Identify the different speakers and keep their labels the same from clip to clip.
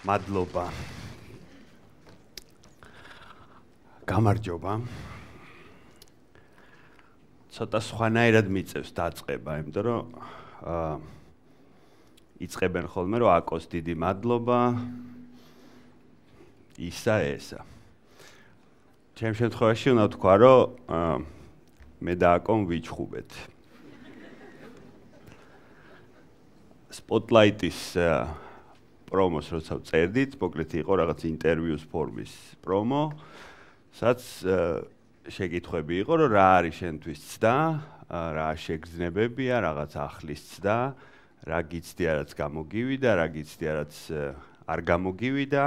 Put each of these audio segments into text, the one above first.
Speaker 1: მადლობა. გამარჯობა. ცოტა სხვანაირად მიწევს დაწყება, იმიტომ რომ იწყებენ ხოლმე რომ აკოს დიდი მადლობა. ისა ესა. ჩემ შემთხვევაში უნდა ვთქვა, რომ მე და აკომ ვიჩხუბეთ. Spotlight-ის პრომოს როცა წერდით, მოკლედ იყო რაღაც ინტერვიუს ფორმის პრომო, სადაც შეკითხვები იყო, რომ რა არის შენთვის ცდა, რა შეგრძნებებია, რაღაც ახლის ცდა, რა გიცდია, რაც გამოგივიდა, რა გიცდია, რაც არ გამოგივიდა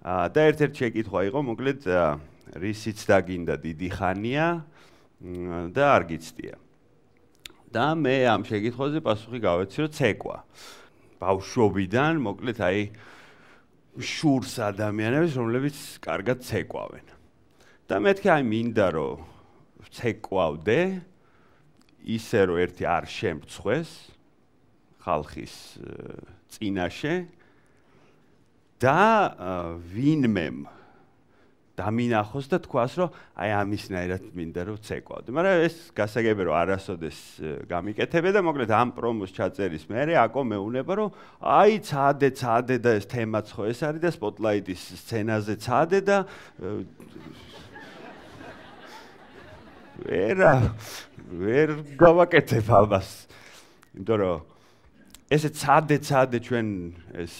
Speaker 1: და ერთ-ერთი შეკითხვა იყო, მოკლედ რისი ცდა გინდა დიდი ხანია და არ გიცდია. და მე ამ შეკითხვაზე პასუხი გავეცი, რომ ცეკვა. ბავშვობიდან, მოკლედ აი შურს ადამიანებს, რომლებიც კარგად ცეკვავენ. და მეთქი აი მინდა რომ ცეკვავდე, ისე რომ ერთი არ შემწხვეს ხალხის წინაშე და ვინმემ დამინახოს და თქვას, რომ აი ამისნაირად მინდა რომ ცეკვავდე. მაგრამ ეს გასაგებია რომ არასოდეს გამიკეთებია და მოკლედ ამ პრომოს ჩაწერის მერე აკო მეუნება რომ აი ცადე და ეს თემაც ხო ეს არის და Spotlight-ის სცენაზე ცადე და ვერ გავაკეთებ ამას. იმიტომ რომ ესე ცადე ჩვენ ეს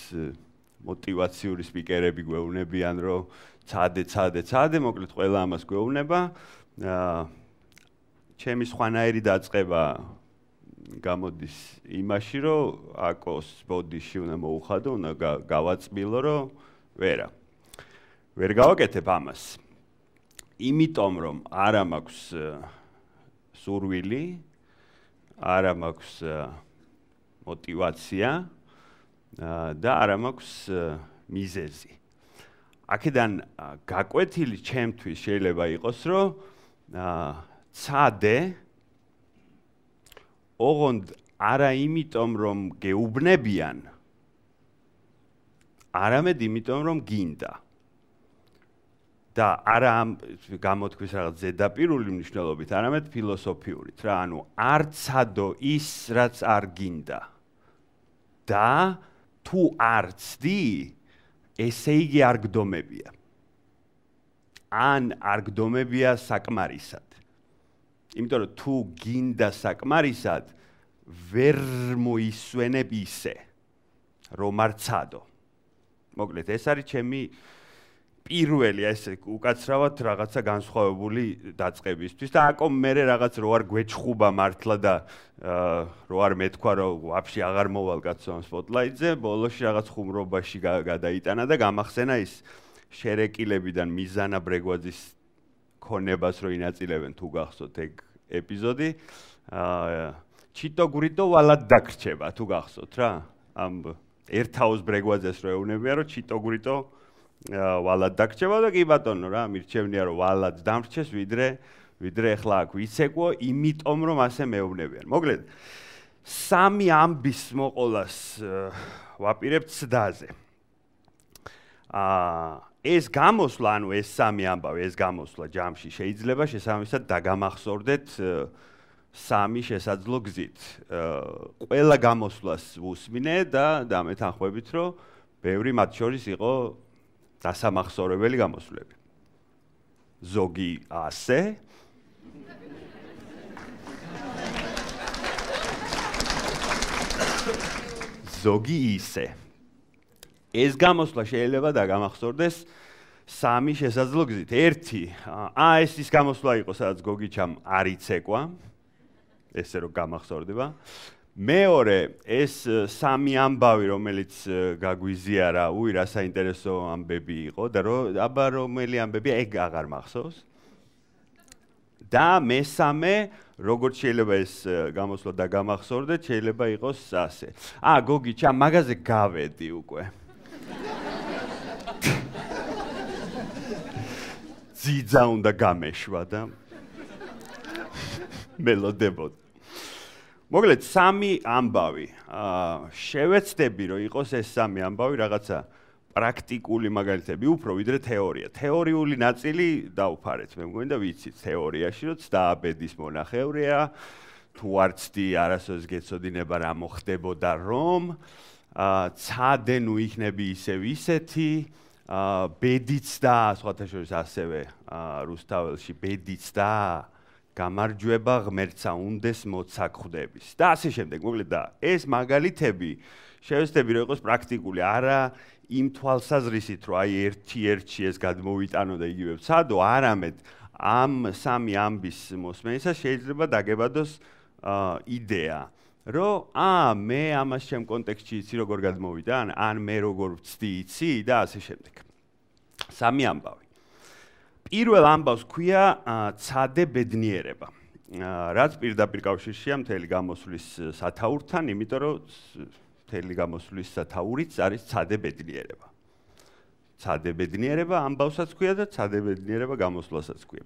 Speaker 1: мотиваციური სპიკერები გვეუბნებიან რომ ცადე, მოკლედ ყველა ამას გვეუბნება. ჩემი სხვანაირი დაწყება გამოდის იმაში, რომ აკოს ბოდიში უნდა მოუხადო, უნდა გავაწმილო, რომ ვერ გავაკეთებ ამას. იმიტომ რომ არა მაქვს სურვილი, არა მაქვს мотиваცია და არა მაქვს მიზეზი. აქედან გაკვეთილი ჩემთვის შეიძლება იყოს, რომ ცადე ოღონდ არა იმიტომ რომ გეუბნებიან, არამედ იმიტომ რომ გინდა. და არა ამ გამოთქვის რაღაც ზედაპირული მნიშვნელობით, არამედ ფილოსოფიურით რა, ანუ არ ცადო ის, რაც არ გინდა. და თუ არ ცდი, ესე იგი არ გდომებია. ან არ გდომებია საკმარისად. იმიტომ რომ თუ გინდა საკმარისად, ვერ მოისვენებ ისე, რომ არ ცადო. მოკლედ, ეს არის ჩემი პირველი ესე უკაცრავად რაღაცა განსხვავებული დაწყებისთვის და აკომ მერე რაღაც რო არ გვეჩხუბა მართლა და რო არ მეთქვა რომ ვაფშე აღარ მოვალ კაცო ამ Spotlight-ზე, ბოლოში რაღაც ხუმრობაში გადაიტანა და გამახსენა ის შერეკილებიდან მიზანა ბრეგვაძის ქონებას რო ინაწილებენ თუ გახსოვთ ეგ ეპიზოდი, ჩიტო გვრიდო ვალად დაგრჩება თუ გახსოვთ რა, ამ ერთაოს ბრეგვაძეს რო ეუბნებიან რომ ჩიტო გვრიდო ვალად დაგრჩება და კი ბატონო რა, მირჩევნია რომ ვალად დამრჩეს, ვიდრე ახლა აქ ვიცეკვო, იმიტომ რომ ასე მეუბნებიან. მოკლედ, სამი ამბის მოყოლას ვაპირებ ცდაზე. ეს გამოსვლა, ანუ ეს სამი ამბავი, ეს გამოსვლა ჯამში შეიძლება შესაბამისად დაგამახსოვრდეთ სამი შესაძლო გზით. ყველა გამოსვლას ვუსმინე და დამეთანხმებით, რომ ბევრი მათ შორის იყო დასამახსოვრებელი გამოსვლები. ზოგი ასე ზოგი ისე. ეს გამოსვლა შეიძლება დაგამახსოვრდეს სამი შესაძლო გზით. ერთი, ეს ის გამოსვლა იყო, სადაც გოგიჩამ არ იცეკვა, ესე რომ გამახსოვრდება. მეორე, ეს სამი ამბავი, რომელიც გაგვიზიარა, რა საინტერესო ამბები იყო და აბა რომელი ამბებია, ეგ აღარ მახსოვს. და მესამე, როგორც შეიძლება ეს გამოსვლა დაგამახსოვრდეთ, შეიძლება იყოს ასე. გოგიჩა, მაგაზე გავედი უკვე. ძიძა უნდა გამეშვა და მელოდებოდა. მოკლედ, სამი ამბავი. შევეცდები, რომ იყოს ეს სამი ამბავი რაღაცა პრაქტიკული მაგალითები უფრო ვიდრე თეორია. თეორიული ნაწილი დავფარეთ, მე მგონი და ვიცით თეორიაში, რომ ცდააბედის მონახევრია, თუ არ ცდი არასოდეს გეცოდინება რა მოხდებოდა რომ, ცადე ნუ იქნები ისევ ისეთი, ბედიც და სხვათა შორის ასევე რუსთაველში ბედიც და გამარჯვება ღმერთსა უნდეს მოცა ხვდების და ასე შემდეგ. მოკლედ და ეს მაგალითები შევეცდები რომ იყოს პრაქტიკული, არა იმ თვალსაზრისით რომ აი ერთ-ერთში ეს გადმოვიტანო და იგივე ვცადო, არამედ ამ სამი ამბის მოსმენისას შეიძლება დაგებადოს იდეა, რომ მე ამას ჩემ კონტექსტში იცი როგორ გადმოვიტან, ან მე როგორ ვცდი იცი და ასე შემდეგ. სამი ამბავი. პირველ ამბავს ქვია ცადე ბედნიერება. რაც პირდაპირ კავშირშია მთელი გამოსვლის სათაურთან, იმიტომ რომ მთელი გამოსვლის სათაურიც არის ცადე ბედნიერება. ცადე ბედნიერება ამბავსაც ქვია და ცადე ბედნიერება გამოსვლასაც ქვია.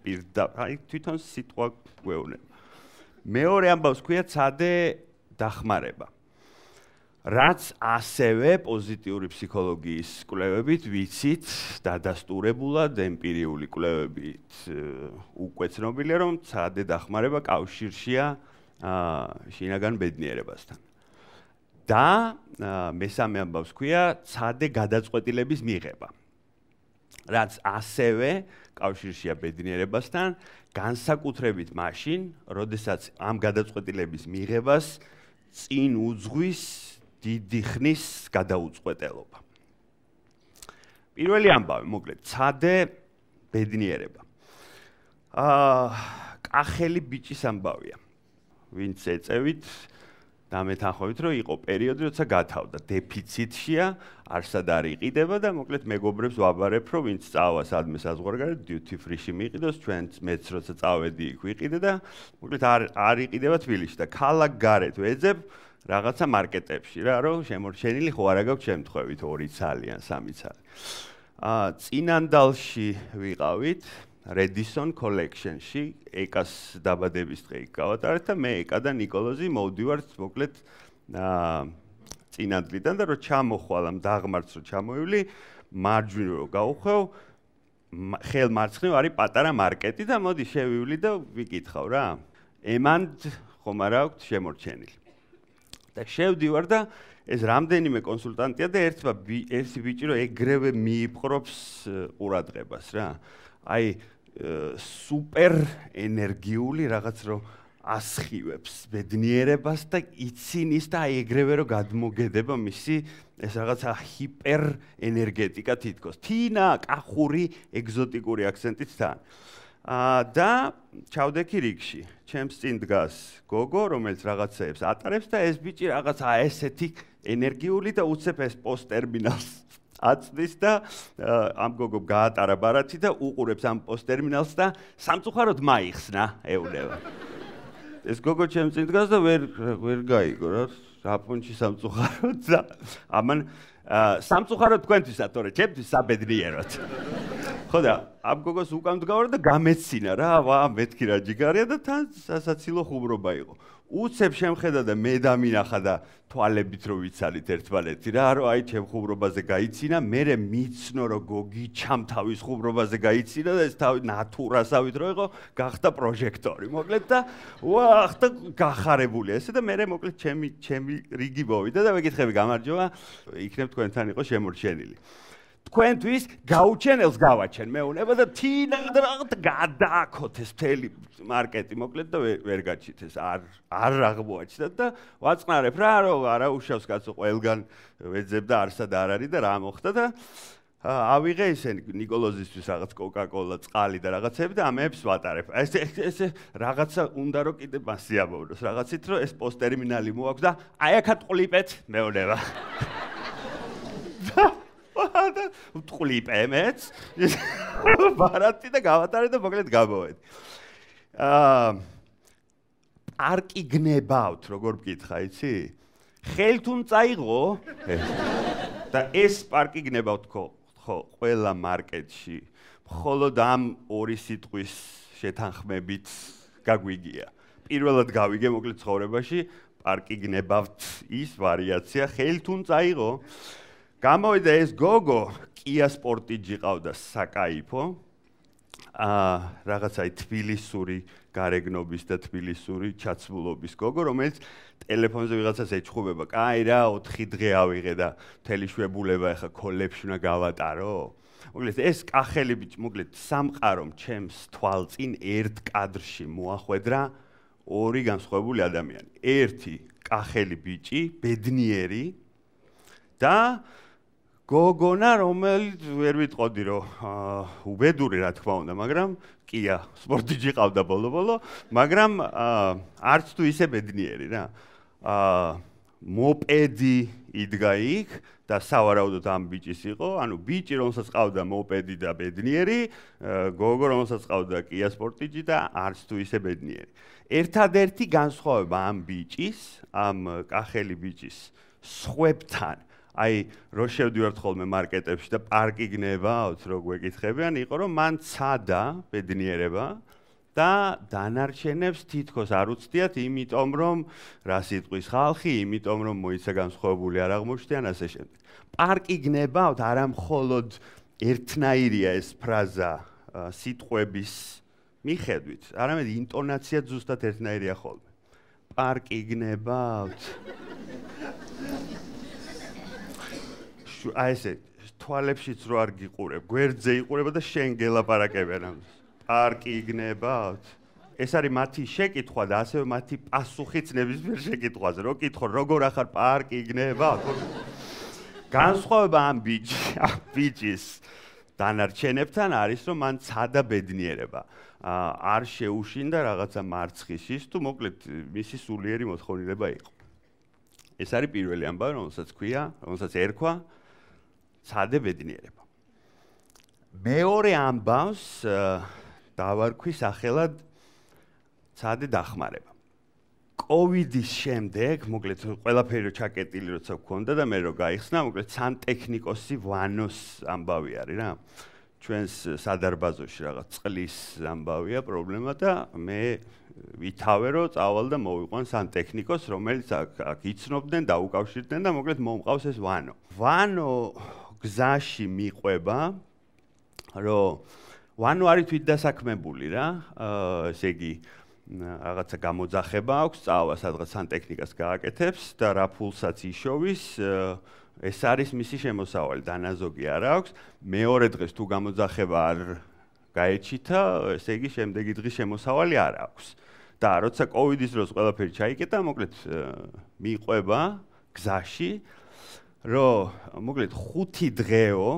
Speaker 1: აი თვითონ სიტყვა გვეუბნება. მეორე ამბავს ქვია ცადე დახმარება. რაც ასევე პოზიტიური ფსიქოლოგიის კვლევებით ვიცით, დადასტურებულად ემპირიული კვლევებით უკვე ცნობილია, რომ ცადე დახმარება კავშირშია შინაგან ბედნიერებასთან. და მესამე ამბავს ქვია ცადე გადაწყვეტილების მიღება. რაც ასევე კავშირშია ბედნიერებასთან, განსაკუთრებით მაშინ, როდესაც ამ გადაწყვეტილების მიღებას წინ უძღვის დიდი ხნის გადაუწყვეტელობა. პირველი ამბავი, მოკლედ, ცადე ბედნიერება. კახელი ბიჭის ამბავია. ვინც ეწევით და მეთანხმებით, რომ იყო პერიოდი, როცა გათავდა დეფიციტშია, არსად არ იყიდება და მოკლედ მეგობრებს ვაბარებ, რომ ვინც წავა სადმე საზღვარგარეთ, duty free-ში მიიყიდოს, ჩვენც მეც როცა წავედი იქ ვიყიდე და მოკლედ არ იყიდება თბილისში და ქალაქ გარეთ ვეძებ რაღაცა მარკეტებში რა, რომ შემორჩენილი ხო არა გაქვს შემთხვევით 2 ცალი ან 3 ცალი. წინანდალში ვიყავით Redison Collection-ში, ეკას დაბადების დღე იქ გავატარეთ და მე ეკა და ნიკოლოზი მოვდივართ მოკლედ წინანდლიდან და რომ ჩამოხვალ ამ დაღმართს რომ ჩამოივლი, მარჯვნივ რომ გავუხვევ, ხელმარცხნივ არის პატარა მარკეტი და მოდი შევივლი და ვიკითხავ რა. ემანდ ხომ არა აქვთ შემორჩენილი. და შევდივარ და ეს რამდენიმე კონსულტანტია და ერთი ბიჭი რომ ეგრევე მიიპყრობს ყურადღებას რა. აი სუპერ ენერგიული რაღაც რომ ასხივებს ბედნიერებას და ცინის და აი ეგრევე რომ გადმოგედება მისი ეს რაღაცა ჰიპერ ენერგეტიკა თითქოს. თინა, კახური, ეგზოტიკური აქცენტით თან. და ჩავდექი რიგში. ჩემს წინ დგას გოგო, რომელიც რაღაცეებს ატარებს და ეს ბიჭი რაღაცა ესეთი ენერგიული და უცებ ეს პოსტერმინალს აწდის და ამ გოგო გაატარა ბარათი და უყურებს ამ პოსტერმინალს და სამწუხაროდ მაიხსნა, ეუბნება. ეს გოგო ჩემს წინ დგას და ვერ გაიგო რა, რაპონჩი სამწუხაროდ და ამან სამწუხაროდ თქვენთვისაც, თორე ჩემთვის საბედნიეროდ. ხო და ამ გოგოს უკან დგავარ და გამეცინა რა, მეთქი რა ჯიგარია და თან სასაცილო ხუმრობა იყო. უცებ შემხედა და მე დამინახა და თვალებით რო ვიცალით ერთმანეთი რა, რომ აი ჩემ ხუმრობაზე გაიცინა, მერე მიცნო რომ გოგი ჩამ თავის ხუმრობაზე გაიცინა და ეს თავი ნატურასავით რო იყო, გახდა პროჟექტორი. მოკლედ და ხდა გახარებულია ესე და მერე მოკლედ ჩემი რიგი მოვიდა და მეკითხები გამარჯობა, იქნებ თქვენთან იყო შემორჩენილი. თქვენთვის გაუჩენელს გავაჩენ მეუნება და თინა რაღაც გადააქოთ ეს მთელი მარკეტი მოკლედ და ვერ გაჩით ეს არ აღმოაჩნდათ და ვაწყნარებ რა რომ არა უშავს კაცო ყველგან ვეძებ და არსად არ არის და რა მოხდა და ავიღე ისინი ნიკოლოზისთვის რაღაც კოკა-კოლა, წყალი და რაღაცები და ამებს ვატარებ. ეს რაღაცა უნდა რომ კიდე მასიამოვნოს რაღაცით რომ ეს პოსტერმინალი მოაქვს და აი აქ ტყლიპეთ მეუნება. ტყლიპემეც ბარათი და გავატარე და მოკლედ გამოვედი. პარკი გნებავთ, როგორ მკითხა, იცი? ხელთუნ წაიღო და ეს პარკი გნებავთ ხო, ყველა მარკეტში. მხოლოდ ამ 2 სიტყვის შეთანხმებით გაგვიგია. პირველად გავიგე მოკლედ ცხოვრებაში, პარკი გნებავთ ის ვარიაცია, ხელთუნ წაიღო. გამოვიდა ეს გოგო, Kia Sportage ყავდა საკაიფო. რაღაცა თბილისური გარეგნობის და თბილისური ჩაცმულობის გოგო, რომელიც ტელეფონზე ვიღაცას ეჩხუბება. კაი რა, 4 დღე ავიღე და მთელი შვებულება ახლა კოლებში უნდა გავატარო. მოკლედ ეს კახელი ბიჭი, მოკლედ სამყარომ ჩემს თვალწინ ერთ კადრში მოახვედრა ორი განსხვავებული ადამიანი. ერთი კახელი ბიჭი, ბედნიერი და გოგონა, რომელიც ვერ ვიტყოდი რომ უბედური რა თქმა უნდა, მაგრამ Kia Sportage ყავდა ბოლო-ბოლო, მაგრამ არც თუ ისე ბედნიერი რა. მოპედი იდგა იქ და სავარაუდოდ ამ ბიჭის იყო, ანუ ბიჭი რომელსაც ყავდა მოპედი და ბედნიერი, გოგო რომელსაც ყავდა Kia Sportage და არც თუ ისე ბედნიერი. ერთადერთი განსხვავება ამ ბიჭის, ამ კახელი ბიჭის სხვებთან აი, რო შევდივართ ხოლმე მარკეტებში და პარკი გნებავთ, რო გვეკითხებიან, იყო რომ მან ცადა ბედნიერება და დანარჩენებს თითქოს არ უცდიათ, იმიტომ რომ რა სიტყვის ხალხი, იმიტომ რომ მოიცა განსხვავებული არ აღმოჩნდიან ასე შემდეგ. პარკი გნებავთ არა მხოლოდ ერთნაირია ეს ფრაზა სიტყვების მიხედვით, არამედ ინტონაცია ზუსტად ერთნაირია ხოლმე. პარკი გნებავთ აი ესე თვალებშიც რო არ გიყურებ, გვერდზე იყურება და შენ გელაპარაკებიან ამას. პარკი გნებავთ. ეს არის მათი შეკითხვა და ასევე მათი პასუხიც ნებისმიერ შეკითხვაზე. რო კითხო, როგორ ახარ პარკი გნებავთ? განსხვავება ამ ბიჭის დანარჩენებთან არის, რომ მან ცადა ბედნიერება. არ შეუშინდა რაღაცა მარცხის თუ მოკლედ მისი სულიერი მოთხოვნილება იყო. ეს არის პირველი ამბავი, რომელსაც ერქვა ცადე ბედნიერება. მეორე ამბავს დავარქვი სახელად ცადე დახმარება. კოვიდის შემდეგ, მოკლედ ყველაფერი რო ჩაკეტილი როცა გქონდა და მე რო გაიხსნა, მოკლედ სანტექნიკოსი ვანოს ამბავი არის რა. ჩვენს სადარბაზოში რაღაც წყლის ამბავია პრობლემა და მე ვითავე რომ წავალ და მოვიყვან სანტექნიკოს, რომელიც აქ იცნობდნენ და უკავშირდნენ და მოკლედ მომყავს ეს ვანო. ვანო გზაში მიყვება, რომ ვანო არის თვითდასაქმებული რა, ესე იგი რაღაცა გამოძახება აქვს, წავა სადღაც სანტექნიკას გააკეთებს და რა ფულსაც იშოვის, ეს არის მისი შემოსავალი, დანაზოგი არ აქვს. მეორე დღეს თუ გამოძახება არ გაეჩითა, ესე იგი შემდეგი დღის შემოსავალი არ აქვს. და როცა კოვიდის დროს ყველაფერი ჩაიკეტა, მოკლედ მიყვება გზაში, რომ მოკლედ 5 დღეო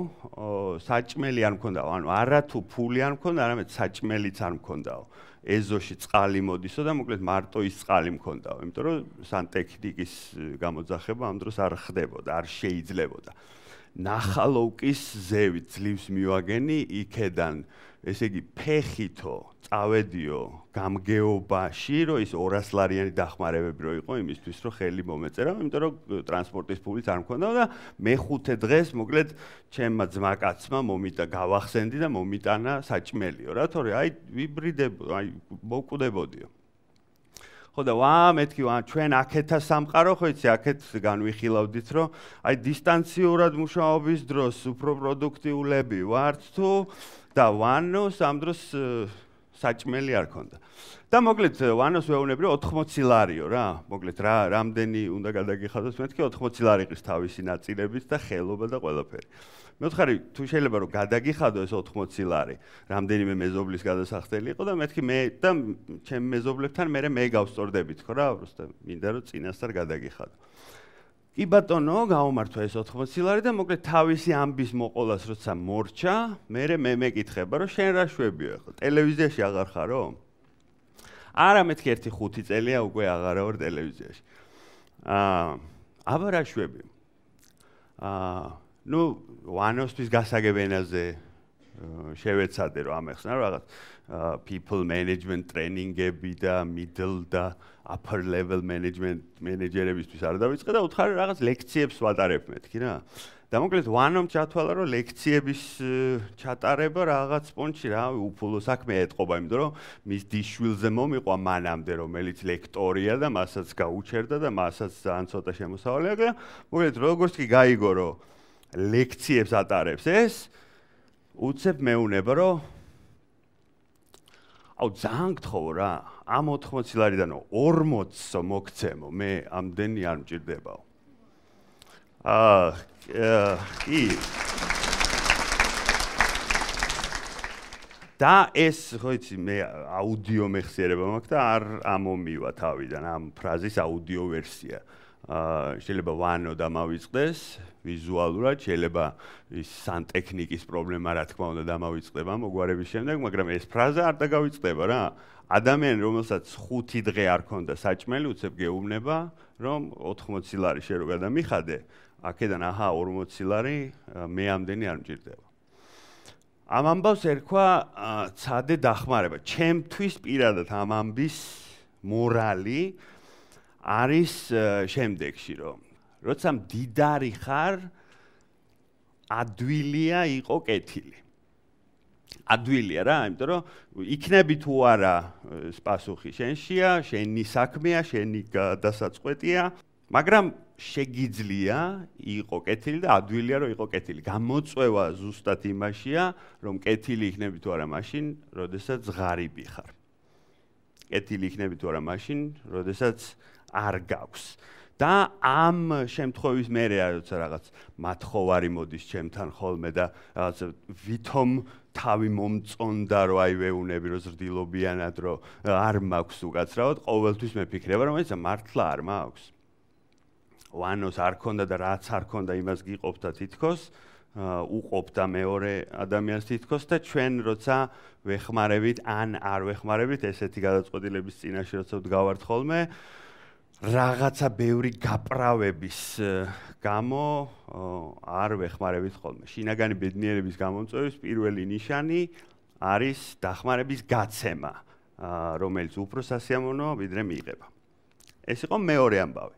Speaker 1: საჭმელი არ მქონდა, ანუ არა თუ ფული არ მქონდა, არამედ საჭმელიც არ მქონდაო. ეზოში წყალი მოდისო და მოკლედ მარტო ის წყალი მქონდაო, იმიტომ რომ სანტექნიკის გამოძახება ამ დროს არ ხდებოდა, არ შეიძლებოდა. ნახალოვკის ზევით ძლივს მივაგენი იქედან, ესე იგი ფეხითო წავედიო გამგეობაში, რომ ის 200 ლარიანი დახმარებები რო იყო იმისთვის, რომ ხელი მომეწერა, იმიტომ რომ ტრანსპორტის ფულიც არ მქონდა და მეხუთე დღეს მოკლედ ჩემმა ძმაკაცმა მომიტა გავახსენდი და მომიტანა საჭმელიო რა, თორე აი ვიბრიდებო, აი მოვკვდებოდიო. ხო და მეთქი ჩვენ აქეთა სამყარო ხო იცი აქეთ განვიხილავდით რომ აი დისტანციურად მუშაობის დროს უფრო პროდუქტიულები ვართ თუ და ვანოს ამ დროს საჭმელი არ ქონდა. და მოკლედ ვანოს ვეუბნები რომ 80 ლარიო რა, მოკლედ რამდენი უნდა გადაგიხადოს მეთქი 80 ლარი ყის თავისი ნაწილებით და ხელობა და ყველაფერი. მე ვთხარი თუ შეიძლება რომ გადაგიხადო ეს 80 ლარი, რამდენიმე მეზობლის გადასახდელი იყო და მეთქი მე და ჩემ მეზობლებთან მე გავსწორდებით ხო რა, უბრალოდ მინდა რომ წინასწარ გადაგიხადო. კი ბატონო, გამომართვა ეს 80 ლარი და მოკლედ თავისი ამბის მოყოლას როცა მორჩა, მე მეკითხება რომ შენ რა შვებიო ახლა, ტელევიზიაში აღარ ხარო? არა მეთქი ერთი 5 წელია უკვე აღარა ვარ ტელევიზიაში. აბა რა შვებიო? ნუ ვანოსთვის გასაგებენაზე შევეცადე რომ ამეხსნა რაღაც people management training-ები და middle და upper level management მენეჯერებისთვის არ დავიწყე და უთხარი რაღაც ლექციებს ვატარებ მეთქი რა. და მოკლედ ვანომ ჩათვალა რომ ლექციების ჩატარება რაღაც პონჩი რა უფულო საქმე ეთყობა, იმიტომ რომ მის დიშვილზე მომიყვა მანამდე რომელიც ლექტორია და მასაც გაუჩერდა და მასაც ძალიან ცოტა შემოსავალი აქვს და მოკლედ როგორც კი გაიგო რომ ლექციებს ატარებს ეს, უცებ მეუნება, რომ ძალიან გთხოვ რა, ამ 80 ლარიდან 40 მოგცემო, მე ამდენი არ მჭირდებაო. კი. და ეს, ხო იცი, მე აუდიო მეხსიერება მაქვს და არ ამომივა თავიდან ამ ფრაზის აუდიო ვერსია. შეიძლება ვანო დამავიწყდეს ვიზუალურად, შეიძლება ის სანტექნიკის პრობლემა რა თქმა უნდა დამავიწყდება მოგვარების შემდეგ, მაგრამ ეს ფრაზა არ დაგავიწყდება რა. ადამიანი, რომელსაც 5 დღე არ ქონდა საჭმელი, უცებ გეუბნება, რომ 80 ლარი შე რო გადამიხადე, აქედან აჰა 40 ლარი მე ამდენი არ მჭირდება. ამ ამბავს ერქვა ცადე დახმარება. ჩემთვის პირადად ამ ამბის მორალი არის შემდეგში, რომ როცა მდიდარი ხარ, ადვილია იყო კეთილი. ადვილია რა, იმიტომ რომ იქნები თუ არა პასუხი შენშია, შენი საქმეა, შენი დასაწყვეტია, მაგრამ შეგიძლია იყო კეთილი და ადვილია რომ იყო კეთილი. გამოწვევა ზუსტად იმაშია, რომ კეთილი იქნები თუ არა მაშინ, როდესაც ღარიბი ხარ. კეთილი იქნები თუ არა მაშინ, როდესაც არ გაქვს. და ამ შემთხვევის მერე როცა რაღაც მათხოვარი მოდის ჩემთან ხოლმე და რაღაც ვითომ თავი მომწონდა რომ აი ვეუნები რომ ზრდილობიანად რომ არ მაქვს უკაცრავად, ყოველთვის მეფიქრება რომ ეს მართლა არ მაქვს. ვანოს არ ქონდა და რაც არ ქონდა იმას გიყოფდა თითქოს, უყოფდა მეორე ადამიანს თითქოს და ჩვენ როცა ვეხმარებით ან არ ვეხმარებით ესეთი გადაწყვეტილების წინაშე როცა ვდგავართ ხოლმე, რაღაცა ბევრი გაправების გამო არ ვეხმარებით ხოლმე. შინაგანი ბედნიერების გამომწვევის პირველი ნიშანი არის დახმარების გაცემა, რომელიც უფრო სასიამოვნოა ვიდრე მიიღება. ეს იყო მეორე ამბავი,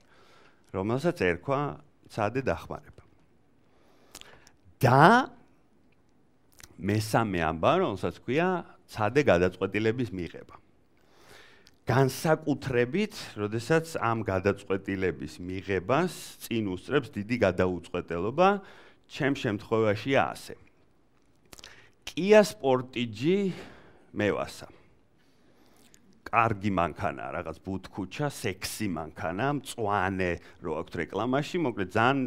Speaker 1: რომელსაც ერქვა ცადე დახმარება. და მესამე ამბავი, რომელსაც ქვია ცადე გადაწყვეტილების მიღება. განსაკუთრებით, როდესაც ამ გადაწყვეტილების მიღებას წინ უსწრებს დიდი გადაუწყვეტელობა, ჩემ შემთხვევაშია ასე. Kia Sportage მევასა. კარგი მანქანა, რაღაც ბუთქუჩა, სექსი მანქანა, მწვანე რო აქვს რეკლამაში, მოკლედ ძალიან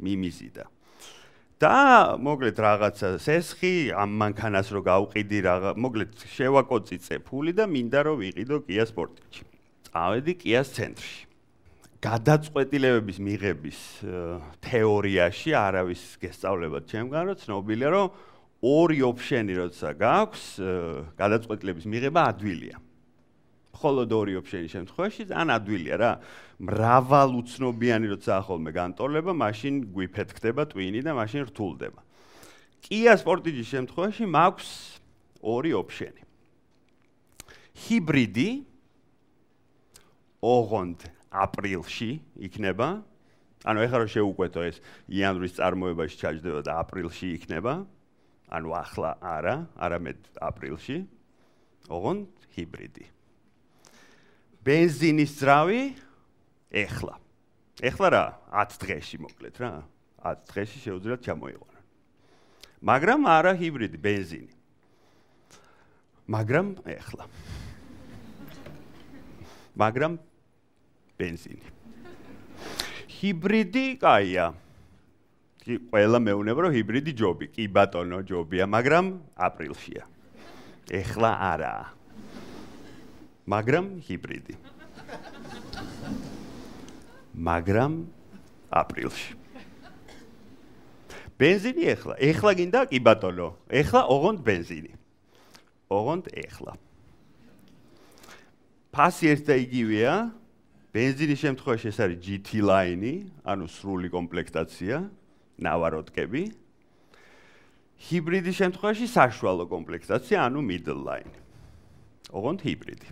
Speaker 1: მიმიზიდა. და მოკლედ რაღაცა სესხი ამ მანქანას რო გავყიდი მოკლედ შევაკოწიწე ფული და მინდა რომ ვიყიდო Kia Sportage. წავედი Kia-ს ცენტრში. გადაწყვეტილებების მიღების თეორიაში არავის გესწავლებად ჩემგან რომ ცნობილია რომ ორი ოფშენი როცა გაქვს, გადაწყვეტილების მიღება ადვილია. მხოლოდ ორი ოფშენის შემთხვევაში ძალიან ადვილია რა. მრავალუცნობიანი როცა ხოლმე განტოლება, მაშინ გვიფეთქდება ტვინი და მაშინ რთულდება. Kia Sportage-ის შემთხვევაში მაქვს ორი ოფშენი. ჰიბრიდი ოღონდ აპრილში იქნება. ანუ ეხლა რომ შევუკვეთო ეს იანვრის წარმოებაში ჩაჯდება და აპრილში იქნება. ანუ ახლა არა, არამედ აპრილში. ოღონდ ჰიბრიდი. ბენზინის ძრავი ეხლა. ეხლა რა? 10 დღეში მოკლედ რა. 10 დღეში შეუძლიათ ჩამოიყვანონ. მაგრამ არა ჰიბრიდი, ბენზინი. მაგრამ ეხლა. მაგრამ ბენზინი. ჰიბრიდი კაია. კი, ყველა მეუნება რომ ჰიბრიდი ჯობი, კი ბატონო ჯობია, მაგრამ აპრილშია. ეხლა არაა. მაგრამ ჰიბრიდი. მაგრამ აპრილში. ბენზინი ეხლა გინდა კი ბატონო. ეხლა ოღონდ ბენზინი. ოღონდ ეხლა. ფასი ერთ და იგივეა. ბენზინის შემთხვევაში ეს არის GT line-ი, ანუ სრული კომპლექტაცია, ნავაროტკები. ჰიბრიდის შემთხვევაში საშუალო კომპლექტაცია, ანუ middle line. ოღონდ ჰიბრიდი.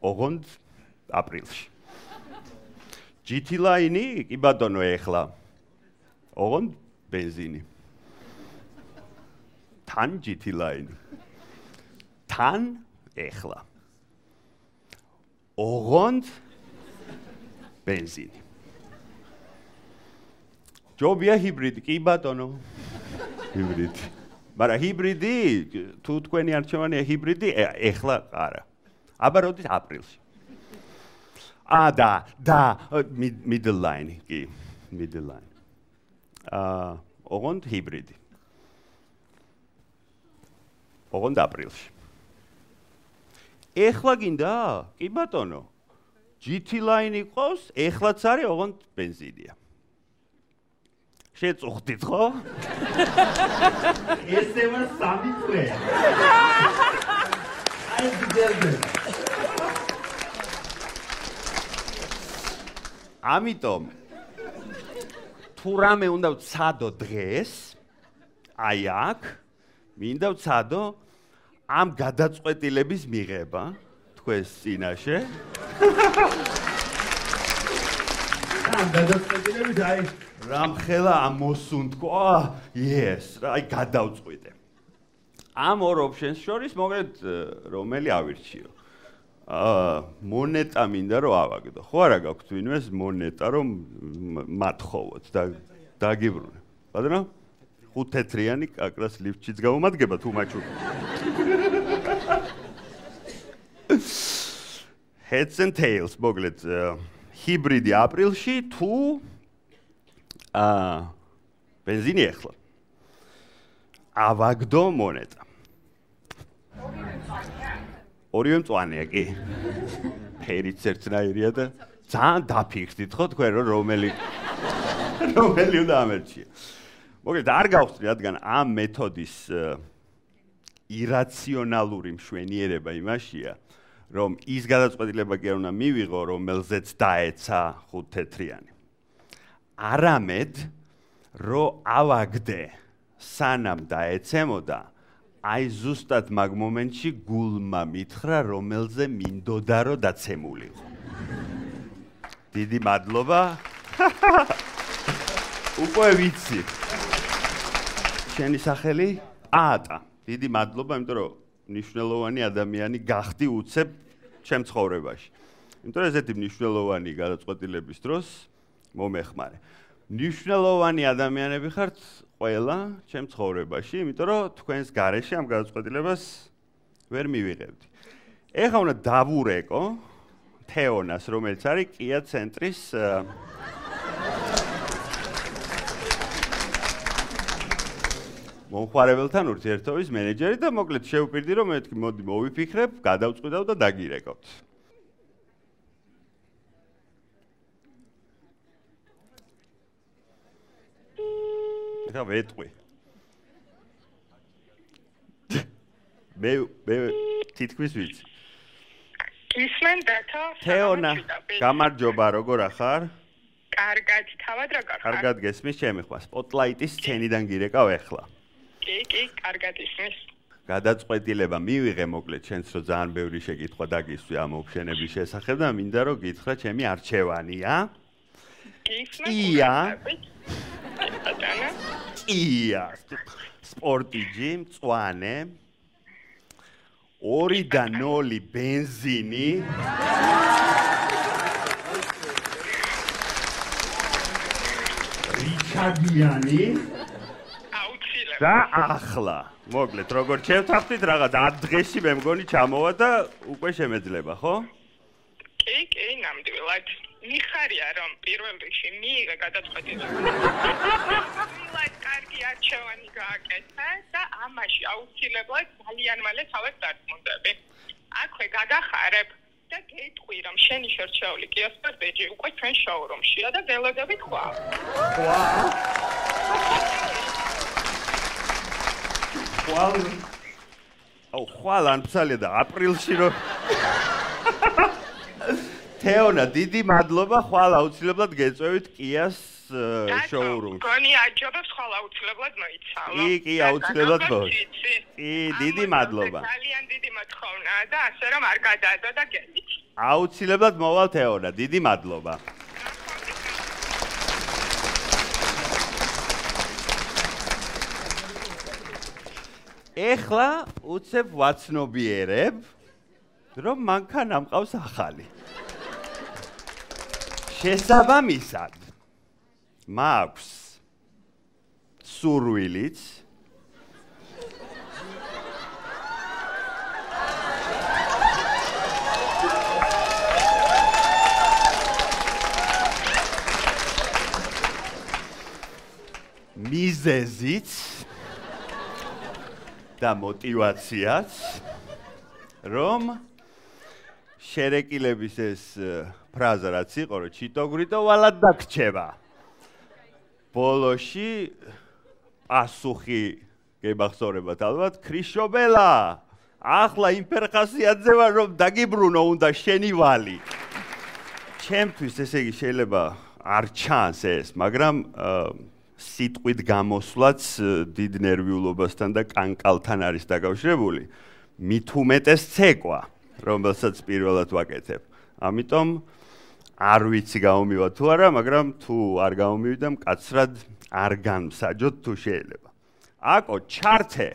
Speaker 1: ოღონდ აპრილში. GT line-ი, კი ბატონო ეხლა. ოღონდ ბენზინი. თან GT line-ი. თან ეხლა. ოღონდ ბენზინი. ჯობია ჰიბრიდი, კი ბატონო. ჰიბრიდი. მაგრამ ჰიბრიდი, თუ თქვენი არჩევანია ჰიბრიდი, ეხლა არა. აბა როდის აპრილში. და middle line, კი, middle line. ოღონდ ჰიბრიდი. ოღონდ აპრილში. ეხლა გინდა? კი ბატონო. GT line იყოს, ეხლაც არის, ოღონდ ბენზინია. შეწუხდით ხო?
Speaker 2: ესევა 3 წელი. აი გძერდე.
Speaker 1: ამიტომ თუ რამე უნდა ვცადო დღეს, აი აქ, მინდა ვცადო ამ გადაწყვეტილების მიღება თქვენს წინაშე.
Speaker 2: ამ გადაწყვეტილების აი
Speaker 1: რამხელა ამოსუნთქო, yes, აი გადავწყვიტე. ამ ორ ოპშენს შორის მოგეთ რომელი ავირჩიო. მონეტა მინდა რომ ავაგდო. ხო არა გაქვთ ვინმეს მონეტა რომ მათხოვოთ და დაგიბრუნე. ბატონო? 5 თეთრიანი კაკრას ლიფტშიც გამომადგება თუ მაჩუკი. Heads and tails, მოგლეთ ჰიბრიდი აპრილში თუ ბენზინი ეხლა. ავაგდო მონეტა. ორივე მწვანეა კი. ფერიც ერთნაირია და ძალიან დაფიქრდით ხო თქვენ რომ რომელი უნდა ამერჩია. მოგეთ არ გავხსნი რადგან ამ მეთოდის ირაციონალური მშვენიერება იმაშია რომ ის გადაწყვეტილება კი არ უნდა მივიღო რომელზეც დაეცა 5 თეთრიანი. არამედ რომ ავაგდე სანამ დაეცემოდა აი ზუსტად მაგ მომენტში გულმა მითხრა რომელზე მინდოდა რომ დაცემულიყო. დიდი მადლობა. უკვე ვიცი. შენი სახელი? ატა. დიდი მადლობა, იმიტომ რომ მნიშვნელოვანი ადამიანი გახდი უცებ ჩემ ცხოვრებაში. იმიტომ რომ ესეთი მნიშვნელოვანი გადაწყვეტილების დროს მომეხმარე. მნიშვნელოვანი ადამიანები ხართ ყველა ჩემ ცხოვრებაში, იმიტომ რომ თქვენს გარეშე ამ გადაწყვეტილებას ვერ მივიღებდი. ეხლა უნდა დავურეკო თეონას, რომელიც არის კია ცენტრის მომხმარებელთან ურთიერთობის მენეჯერი და მოკლედ შევპირდი რომ მეთქი მოდი მოვიფიქრებ, გადავწყვიტავ და დაგირეკავთ. ეხლა ვეტყვი. მე თითქმის ვიცი.
Speaker 3: ისმენ დათო
Speaker 1: თეონა, გამარჯობა, როგორ ახარ?
Speaker 3: კარგად, თავად როგორ ხარ?
Speaker 1: კარგად გესმის ჩემი ხმა. სპოტლაიტის სცენიდან გირეკავ ეხლა.
Speaker 3: კი, კარგად ისმის.
Speaker 1: გადაწყვეტილება მივიღე მოკლედ ჩვენც რომ ძალიან ბევრი შეკითხვა დაგისვი ამ ოფშენების შესახებ და მინდა რომ გითხრა ჩემი არჩევანია. კია. კია. სპორტიჯი, მწვანე. 2.0 ბენზინი.
Speaker 2: რიჩარდიანი.
Speaker 1: და ახლა, მოკლედ, როგორ შევთანხმდით რაღაც დღეში მე მგონი ჩამოვა და უკვე შემეძლება, ხო?
Speaker 3: კი, ნამდვილად. მიხარია რომ პირველ რიგში მიიღე გადაწყვეტილება. მილად კარგი არჩევანი გააკეთა და ამაში აუცილებლად ძალიან მალე თავად დარწმუნდები. აქვე გადახარებ და გეტყვი რომ შენი შერჩეული Kia Sportage უკვე ჩვენ შოურუმშია და ველოდებით ხვალ.
Speaker 1: ხვალ ან ფსალია და აპრილში რომ თეონა, დიდი მადლობა, ხვალ აუცილებლად გეწევით Kia-ს შოურუმში.
Speaker 3: გონი აჯობებს ხვალ აუცილებლად მოიცალო.
Speaker 1: კი, აუცილებლად მოვა. კი, დიდი მადლობა.
Speaker 3: ძალიან დიდი მოთხოვნაა და ასე რომ არ გადაადო და გელით.
Speaker 1: აუცილებლად მოვალ თეონა, დიდი მადლობა. ეხლა უცებ ვაცნობიერებ, რომ მანქანა ამყავს ახალი. შესაბამისად, მაქვს სურვილიც მიზეზიც და мотивაციაც რომ შერეკილების ეს ფრაზა რაც იყო რომ ჩიტოგრიტო ვალად დაგრჩება ბოლოში პასუხი გებახსოვრებათ ალბათ ქრიშობელა ახლა იმ ფერხასიათზე ვარ რომ დაგიბრუნო უნდა შენი ვალი ჩემთვის ესე იგი შეიძლება არ ჩანს ეს მაგრამ სიტყვით გამოსვლაც დიდ ნერვიულობასთან და კანკალთან არის დაკავშირებული მით უმეტეს ცეკვა რომელსაც პირველად ვაკეთებ ამიტომ არ ვიცი გამომივა თუ არა მაგრამ თუ არ გამომივიდა მკაცრად არ განმსაჯოთ თუ შეიძლება აკო ჩართე